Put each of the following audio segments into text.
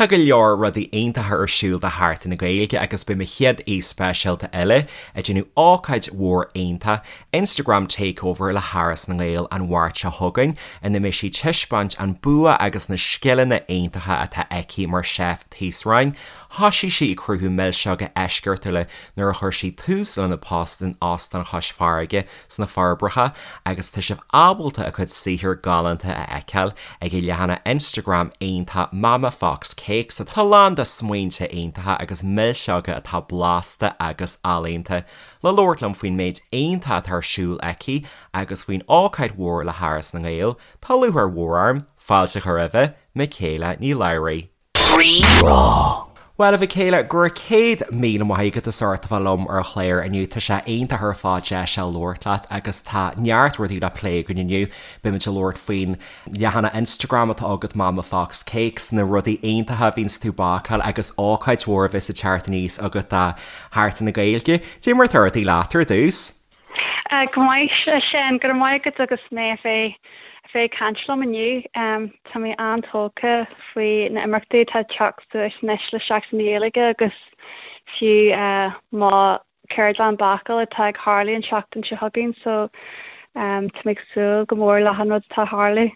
Tá go leor rudaí iontacha ar siúl do Sheachtain na Gaeilge agus beidh mo chéad aoi speisialta eile ag déanamh ócáid mhór iontach, Instagram Takeover le hÁras na nGael an Mháirt seo chugainn, ina mbeidh sí ag taispeáint an bua agus na scileanna iontacha atá aici mar chef taosráin. Thoisigh sí ag cruthú milseoga eisceachtúla nuair a chuir sí tús lena post in Óstán Chois Fharraige sna Forbacha agus tá sibh ábalta a cuid saothar galánta a fheiceáil ag a leathanach Instagram iontach Mama Fox Cakes atá lán de smaointe iontacha agus milseoga atá blasta agus ealaíonta. Le labhairt liom faoin méid iontach atá ar siúl aici agus faoin ócáid mhór le hÁras na nGael, tá lúcháir mhór orm fáilte a chur roimhe, Michaela Ní Labhraí. Rí-Rá. Bhuel, a Mhichaela, go raibh 100,000 maith agat as ucht a bheith liom ar an chlár inniu. Tá sé iontach ar fad deis a labhairt leat agus tá neart rudaí le plé againn inniu. Beimid ag labhairt faoin leathanach Instagram atá agat Mama Fox Cakes, na rudaí iontacha a bhíonns tú ag bácáil agus ócáid mhór a bheas ag teacht aníos agat do Sheachtain na Gaeilge. Cad é mar atá rudaí leat ar dtús? Go maith, a Sheáin, go raibh maith agat agus mé a bheith a bheith ag caint liom inniu. Tá mé an-tógtha faoi na imeachtaí atá ag teacht suas anois le Seachtain na Gaeilge agus fiú mo cheardlann bácála atá ag tharlú an tseachtain seo chugainn so tá mé ag súil go mór le achan rud atá ag tharlú.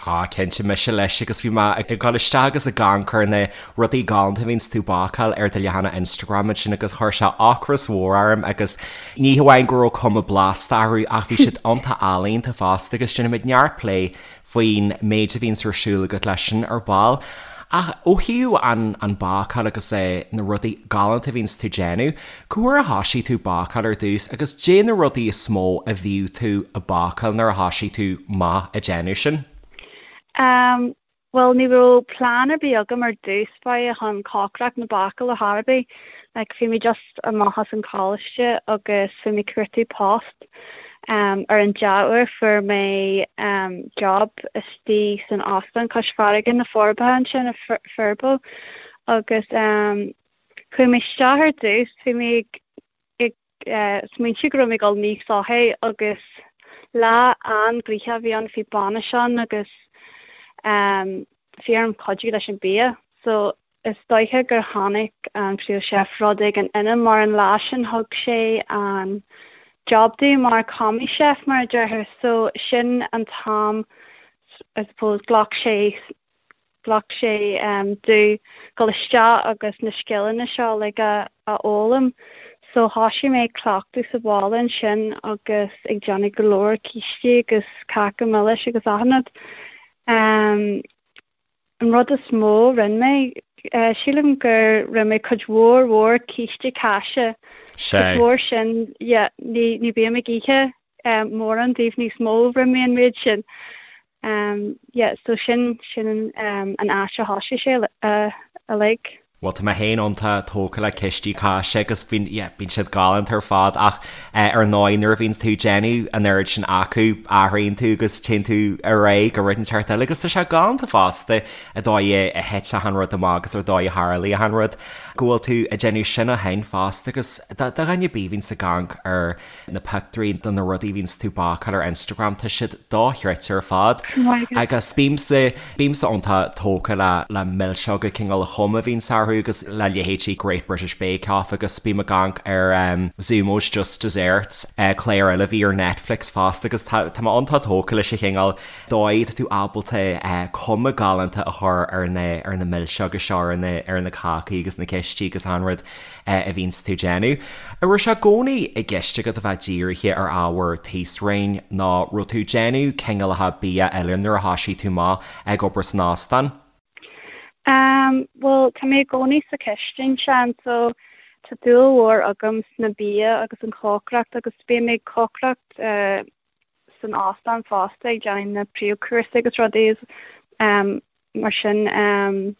Á, cinnte, mise leis agus bhí mé ag dul isteach agus ag amharc ar na rudaí galánta a bhíonns tú ag bácáil ar do leathanach Instagram ansin agus chuir sé ocras mhór orm agus ní hamháin go raibh cuma blasta orthu ach bhí siad iontach ealaíonta fosta agus déanfaimid neart plé faoin méid a bhíonns ar siúl agat leis sin ar ball. Ach ó thaobh an an bácáil agus eh na rudaí galánta a bhíonns tú ag déanamh, cá huair a thoisigh tú bácáil ar dtús agus caidé na rudaí is mó a bhíodh tú ag bácáil nuair a thoisigh tú amach ag déanamh sin? Em, bhuel ní raibh plean ar bith agam ar dtús báire chun cócaireacht nó bácáil ar chor ar bith. Like bhí mé just amach as an choláiste agus bhí mé ag cuartú post. Ar an dea-uair fuair mé job istigh san óstán cois farraige na Forbacha ansin i Furbo agus chuaigh mé isteach ar dtús, bhí mé ag smaointiú go raibh mé ag dul nigh soithigh agus lá an-ghnoitheach a bhí ann, bhí bainis ann agus bhí orm cuidiú leis an bia so Is dóiche gur chonaic an príomh-chef rud éigin ionam mar an lá sin thug sé an job domh mar commis chef mar a déarfá so sin an t-am I suppose ghlac sé ghlac sé domh dul isteach agus na scileanna seo like a a fhoghlaim so thoisigh mé ag cleachtadh sa bhaile ansin agus ag déanamh go leor cístí agus cáca milis agus achan rud. An rud is mó a rinne mé, sílim gur rinne mé cuid mhór mhór císte cáise. Cuid mhór sin, yeah, ní ní bím ag ithe mórán díobh níos mó, rinne mé an méid sin. Yeah, so sin sin an áit a thoisigh sé uilig. Bhuel tá mé féin iontach tógtha le cístí cáise agus bíonn, yeah, bíonn siad galánta ar fad ach eh, ar ndóigh nuair a bhíonn tú ag déanamh an oiread sin acu athraíonn tú agus téann tú ar aghaidh go rud inteacht eile agus tá sé galánta fosta an dóigh a a thit achan rud amach agus ar dóigh a tharlaigh achan rud go bhfuil tú ag déanamh sin ó shin fosta agus do do dhuine ar bith a bhíonns ag amharc ar na pictiúirí de na rudaí a bhíonns tú ag bácáil ar Instagram, tá siad dochreidte ar fad. Agus bímse, bímse iontach tógtha le, le milseoga cineál an chuma a bhíonns orthu agus le leithéidí Great British Bake Off agus bím ag amharc ar Zumo's Just Desserts, clár eile a bhí ar Netflix fosta agus tá, tá mé iontach tógtha leis an chineál dóigh atá tú ábalta cuma galánta a chur ar na, ar na milseoga seo, ar na, ar na cácaí agus na cístí agus achan rud. a bhíonns tú ag déanamh. An raibh sé i gcónaí i gceist agat a bheith dírithe ar ábhar taosráin nó raibh tú ag déanamh cineálacha bia eile nuair a thoisigh tú amach ag obair san óstán? Em, bhuel, tá mé i gcónaí sa chistin, Seán, so tá dúil mhór agam sna bia agus an chócaireacht agus bím ag cócaireacht eh, san óstán fosta ag déanamh na príomhchúrsaí agus rudaí em, mar sin. Em,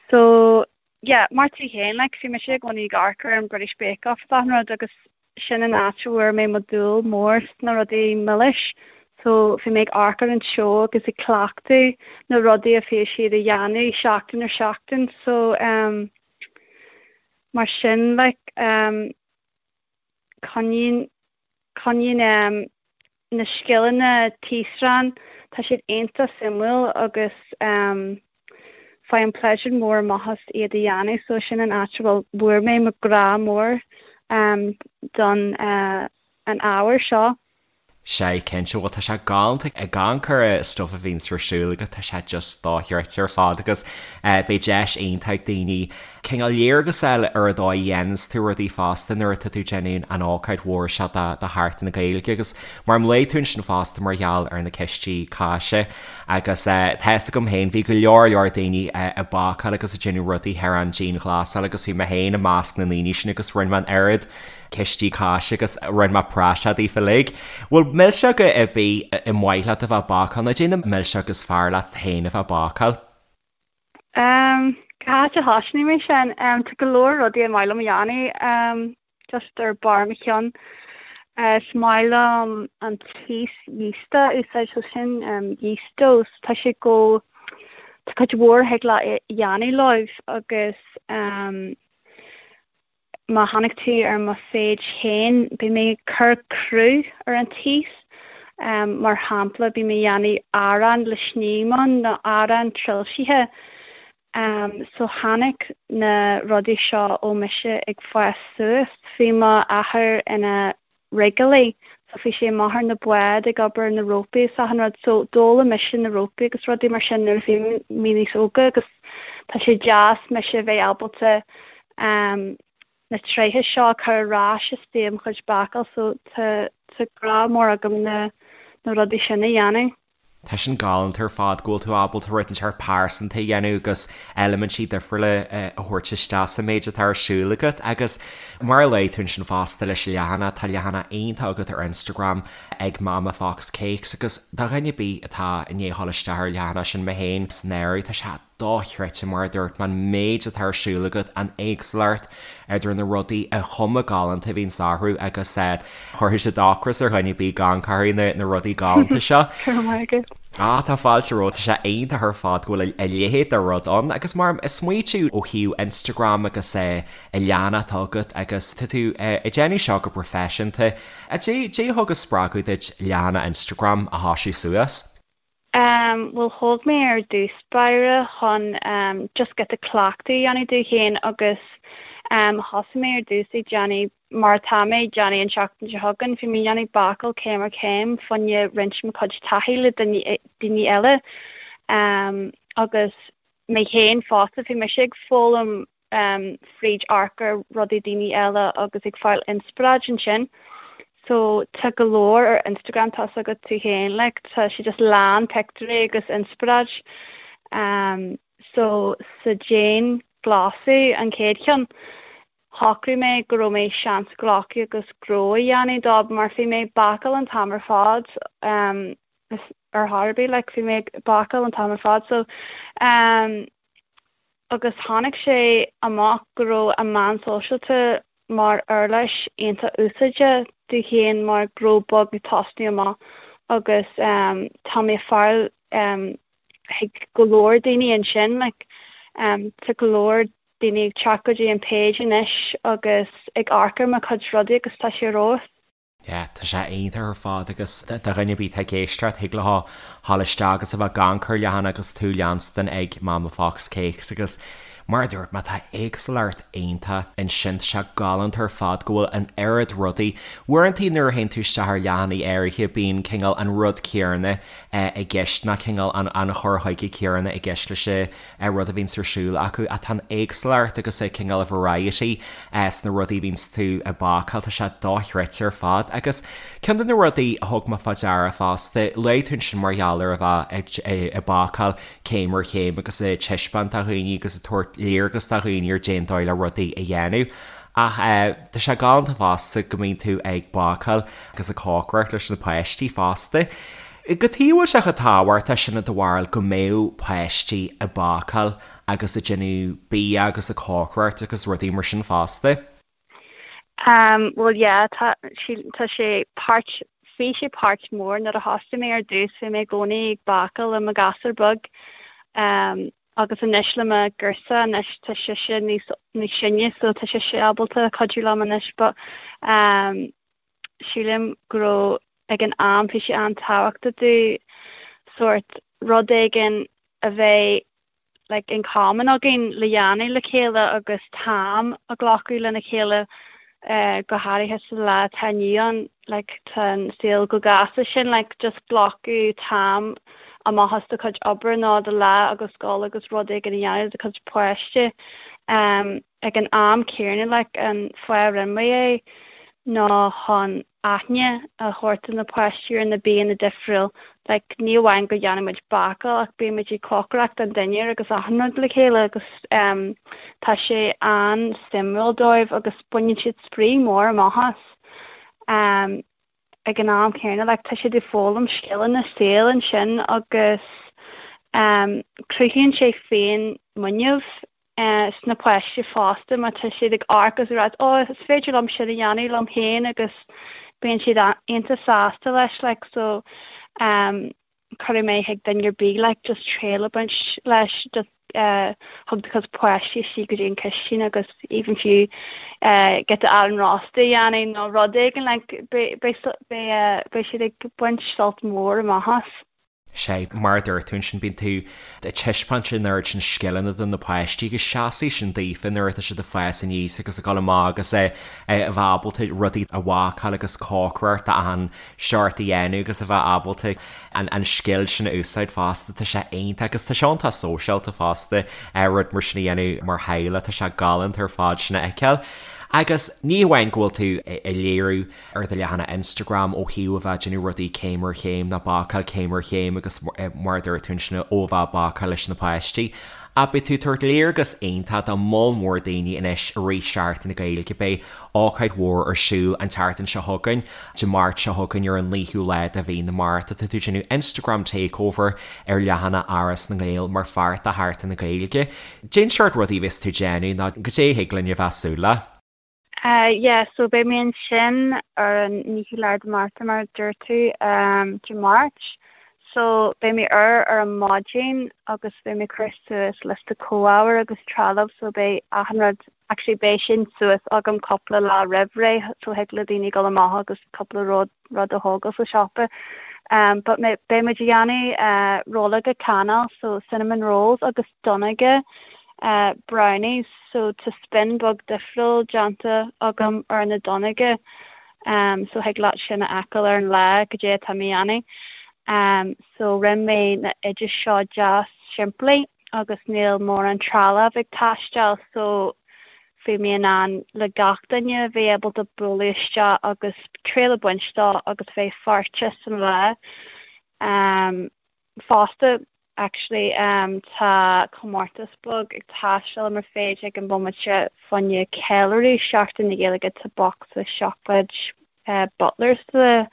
so yeah, mar tú féin, like, bhí mise i gcónaí ag amharc ar an British Bake Off is achan rud agus sin an áit a bhfuair mé mo dúil mór sna rudaí milis. So bhí mé ag amharc ar an seó agus ag cleachtadh na rudaí a bhí siad a dhéanamh seachtain ar seachtain. So um, mar sin, like, um, coinníonn, coinníonn um, na scileanna taosráin, tá siad iontach suimiúil agus um. Faighim pléisiúr mór amach as iad a dhéanamh so sin an áit a bhfuil bhfuair mé mo grá mór don an ábhar seo. Sea, cinnte, bhuel tá sé galánta ag amharc ar an stuif a bhíonns ar siúl agat, tá sé just dochreidte ar fad agus beidh deis iontach ag daoine cineál léargas a fháil ar an dóigh a dhéananns tú rudaí fosta nuair atá tú ag déanamh an ócáid mhór seo do Sheachtain na Gaeilge agus mar luaigh tú ansin fosta mar gheall ar na cistí cáise agus tá fhios agam féin bhí go leor leor daoine ag bácáil agus ag déanamh rudaí thar an dianghlasáil agus bhí mé féin i measc na ndaoine sin agus rinne mé an oiread cistí cáise agus rinne mé praiseach daofa uilig. Bhfuil milseoga ar bith ar mhaith leat a bheith ag bácáil nó cad é na milseoga is fearr leat féin a bheith ag bácáil? Cá háit a thosnóidh mé sin? Tá go leor rudaí ar maith liom a dhéanamh just ar barr mo cheann. Is maith liom an taos yeasta a úsáid so sin yeast doughs. Tá sé go, tá cuid mhór a thig leat a dhéanamh leo agus Má tháinig tú ar mo page féin, beidh mé ag cur cruth ar an taos. Mar shampla, beidh mé ag déanamh arán le sním ann nó arán trilsithe. So tháinig na rudaí seo ó mise ag fás suas. Bhí m'athair ina rigeálaí so bhí sé amach ar na báid ag obair na rópaí is achan rud so d'fhoghlaim mise na rópaí agus rudaí mar sin nuair a bhí mé níos óga agus tá sé deas mise a bheith ábalta na tréithe seo a chur ar ais istigh i mo chuid bácáil so tá tá grá mór agam na na rudaí sin a dhéanamh. Tá sin galánta ar fad go bhfuil tú ábalta rud inteacht pearsanta a dhéanamh agus eilimintí difriúla a thabhairt isteach sa méid atá ar siúl agat agus mar a luaigh tú ansin fosta leis an leathanach, tá leathanach iontach agat ar Instagram ag Mama Fox Cakes agus do dhuine ar bith atá i ndiaidh a dhul isteach ar an leathanach sin, mé féin san áireamh, tá sé dochreidte, mar a dúirt mé, an méid atá ar siúl agat, an éagsúlacht idir na rudaí, an chuma galánta a bhíonns orthu agus chuirfeadh sé ocras ar dhuine ar bith gan amharc ar na rudaí galánta seo. Go raibh maith agat. Ah, tá fáilte romhat, tá sé iontach ar fad go bhfuil a leithéid de rud ann agus mar ag smaoitiú ó thaobh Instagram agus an leathanach atá agat agus tá tú ag déanamh seo go proifisiúnta, cad é a thug an spreagadh duit leathanach Instagram a thoisiú suas? Bhuel thóg mé ar dtús báire chun just giota cleachtadh a dhéanamh domh féin agus thosaigh mé ar dtús ag déanamh mar atá mé ag déanamh an tseachtain seo chugainn, bhí mé ag déanamh bácáil céim ar chéim fá choinne roinnt mo chuid taithí le daoine eile agus mé féin fosta, bhí mise ag foghlaim fríd amharc ar rudaí daoine eile agus ag fáil inspioráid ansin. So tá go leor ar Instagram tá's agat tú féin like tá sé just lán pictiúirí agus inspioráid. Um, so sa dianghlasáil an chéad cheann, shocraigh mé go raibh mé seans a ghlacadh agus gnó a dhéanamh dó mar bhí mé ag bácáil an t-am ar fad um, ar chor ar bith like bhí mé ag bácáil an t-am ar fad so um, agus tháinig sé amach go raibh an meán sóisialta mar uirlis iontach úsáideach domh féin mar gnó beag ag tosnú amach agus tá mé ag fáil chuig go leor daoine ansin like tá go leor daoine ag teacht go dtí an page anois agus ag amharc ar mo chuid rudaí agus tá sé ar fheabhas. Yeah, tá sé iontach ar fad agus do dhuine ar bith atá ag éisteacht, thig leo dhul isteach agus a bheith ag amharc ar an leathanach agus tú leanstan ag Mama Fox Cakes agus mar a dúirt mé tá éagsúlacht iontach ansin, tá sé galánta ar fad go bhfuil an oiread rudaí. Uaireanta nuair a théann tú isteach ar leathanaigh áirithe bíonn cineál an rud céanna i gceist nó cineál an chur chuige céanna i gceist leis an rud a bhíonns ar siúl acu ach tá an éagsúlacht agus an cineál variety sna rudaí a bhíonns tú ag bácáil, tá sé dochreidte ar fad. Agus ceann de na rudaí a thug mé fá deara fosta, luaigh tú ansin mar gheall ar a bheith ag bácáil céim ar chéim agus ag taispeáint do dhaoine agus ag tabhairt léargas do dhaoine ar cén dóigh le rudaí a dhéanamh. Ach tá sé galánta fosta go mbíonn tú ag bácáil agus ag cócaireacht leis na páistí fosta. Cad chuige a bhfuil sé chomh tábhachtach sin i do bharúil go mbeadh páistí ag bácáil agus ag déanamh bia agus ag cócaireacht agus rudaí mar sin fosta? Um bhuel yeah tá tá sé páirt bhí sé páirt mór nuair a thosaigh mé ar dtús bhí mé i gcónaí ag bácáil le mo ghasúr beag um agus anois le mo ghirseach anois tá sise níos níos sine so tá sise ábalta cuidiú liom anois but um sílim go raibh ag an am bhí sé an-tábhachtach domh sórt rud éigin a bheith. like in common againn le dhéanamh le chéile agus t-am a ghlacadh lena chéile go háirithe sa lá atá inniu ann like tá an saol chomh gasta sin like just glacadh t-am amach as do chuid oibre nó do lá agus dul agus rud éigin a dhéanamh le do chuid páiste um ag an am céanna like an fáth a rinne mé é ná chun aithne a thabhairt do na páistí ar na bianna difriúil. Like, ní amháin go dhéanann muid bácáil ach bíonn muid ag cócaireacht an dinnéar agus achan rud le chéile agus em tá sé an-suimiúil dóibh agus baineann siad spraoi mór amach as. Em ag an am céanna like tá siad ag foghlaim scileanna saoil ansin agus em cruthaíonn sé féin muinín sna páistí fosta má tá siad ag amharc agus ag rá oh is féidir liom sin a dhéanamh liom féin agus bíonn siad iontach sásta leis like so um cuirfidh mé chuig duine ar bith like just triail a bhaint leis just uh thug do chuid páistí istigh go dtí an chistin agus even fiú uh giota arán rósta a dhéanamh nó rud éigin like beidh beidh beidh beidh siad ag baint sult mór amach as. Sea, mar a dúirt tú ansin, bíonn tú ag taispeáint an oiread sin scileanna do na páistí agus seasfaidh sin daofa nuair atá siad ag fás aníos agus ag dul amach agus a bheith ábalta rudaí a bhácáil agus cócaireacht achan seort a dhéanamh agus a bheith ábalta an scil sin a úsáid fosta. Tá sé iontach agus tá sé iontach sóisialta fosta rud mar sin a dhéanamh mar theaghlach, tá sé galánta ar fad sin a fheiceáil. Agus ní hamháin go bhfuil tú ag léiriú ar do leathanach Instagram ó thaobh a bheith ag déanamh rudaí céim ar chéim nó bácáil céim ar chéim agus mar a dúirt tú ansin ó a bheith ag bácáil leis na páistí. Ach beidh tú ag tabhairt léargas iontach do moll mór daoine anois i rith Seachtain na Gaeilge. Beidh ócáid mhór ar siúl an tseachtain seo chugainn, Dé Máirt seo chugainn ar an 9ú lá de mhí na Márta. Tá tú ag déanamh Instagram Takeover ar leathanach Áras na nGael mar pháirt de Sheachtain na Gaeilge. Cén seort rudaí a bheas tú ag déanamh nó goidé a thig linn a bheith ag súil le? Yeah, so beidh mé ansin ar an 9ú lá de Márta mar a dúirt tú, Dé Máirt. So beidh mé ar ar an maidin agus beidh mé ag cur suas liosta comhábhair agus trealamh so beidh achan rud, actually beidh sin suas agam cúpla lá roimh ré so thig le daoine dul amach agus cúpla rud rud a thógáil sa siopa. But beidh muid ag déanamh rollóga cannais so cinnamon rolls agus donnóga brownies so tá spin beag difriúil déanta agam ar na donnóga so thig leat sin a fheiceáil ar an lá goidé atá mé a dhéanamh. So rinne mé na oidis seo deas simplí agus níl mórán trealamh ag taisteáil so bhí mé in ann le gach duine a bheith ábalta bualadh isteach agus triail a bhaint dó agus bheith pháirteach san lá. Fosta, actually, tá comórtas beag ag taisteal mar féidir ag an bhomaite fá choinne ceiliúradh Seachtain na Gaeilge tá bocsa seacláid Butlers le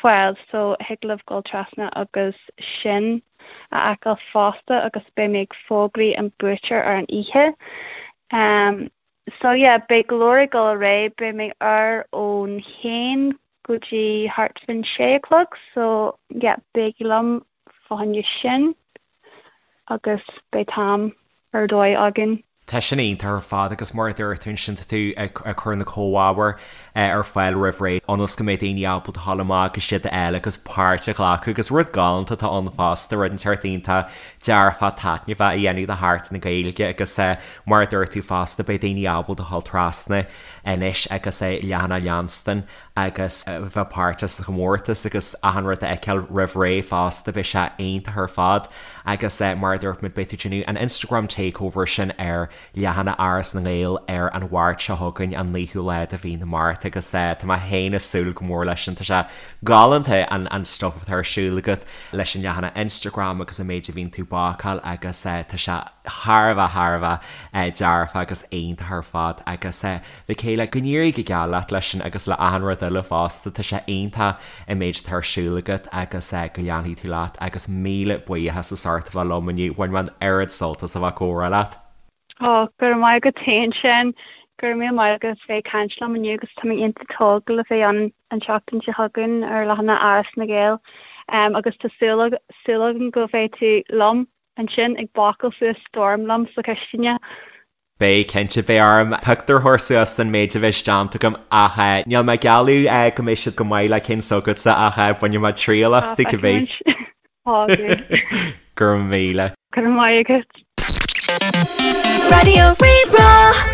fáil so thig libh dul trasna agus sin a fheiceáil fosta agus beidh mé ag fógraí an buaiteoir ar an oíche. So yeah, beidh go leor ag dul ar aghaidh, beidh mé ar ón haon go dtí thart faoin sé a chlog so yeah, bígí liom fá choinne sin agus beidh t-am ar dóigh againn. Tá sin iontach ar fad agus mar a dúirt tú ansin tá tú ag cur na comhábhair ar fáil roimh ré ionas go mbeidh daoine ábalta a ghabháil amach agus iad a fháil agus páirt a ghlacadh agus rud galánta atá ann fosta, rud inteacht iontach dearfach taitneamhach a dhéanamh de Sheachtain na Gaeilge agus mar a dúirt tú fosta beidh daoine ábalta a ghabháil trasna anois agus a leathanach a leanstan agus a bheith páirteach sa chomórtas agus achan rud a fheiceáil roimh ré fosta, beidh sé iontach ar fad agus mar a dúirt muid beidh tú ag déanamh an Instagram takeover sin ar leathanach Áras na nGael ar an Mháirt seo chugainn, an 9ú lá de mhí na Márta agus tá mé féin ag súil go mór leis sin, tá sé galánta an an stuff atá ar siúl agat leis an leathanach Instagram agus an méid a bhíonn tú ag bácáil agus tá sé thar a bheith thar a bheith dearfach agus iontach ar fad agus Michaela, go n-éirí go geal leat leis sin agus le achan rud eile fosta, tá sé iontach an méid atá ar siúl agat agus go leanfaidh tú leat agus míle buíochas as ucht a bheith liom inniu, bhain mé an oiread sult as a bheith ag comhrá leat. Ó, go raibh maith agat féin Seán, go raibh míle maith agat as bheith ag caint liom inniu agus tá mé iontach tógtha le bheith ann an tseachtain seo chugainn ar leathanach Áras na nGael agus tá súil súil agam go mbeidh tú liom ansin ag bácáil suas storm liom sa chistin. Beidh, cinnte, beidh orm pictiúr a chur suas den méid a bheas déanta agam ach níl mé ag gealladh go mbeidh siad go maith le cinn s'agatsa ach bainfidh mé triail astu cibé. Go raibh míle. Go raibh maith agat. Raidió Rí-Rá.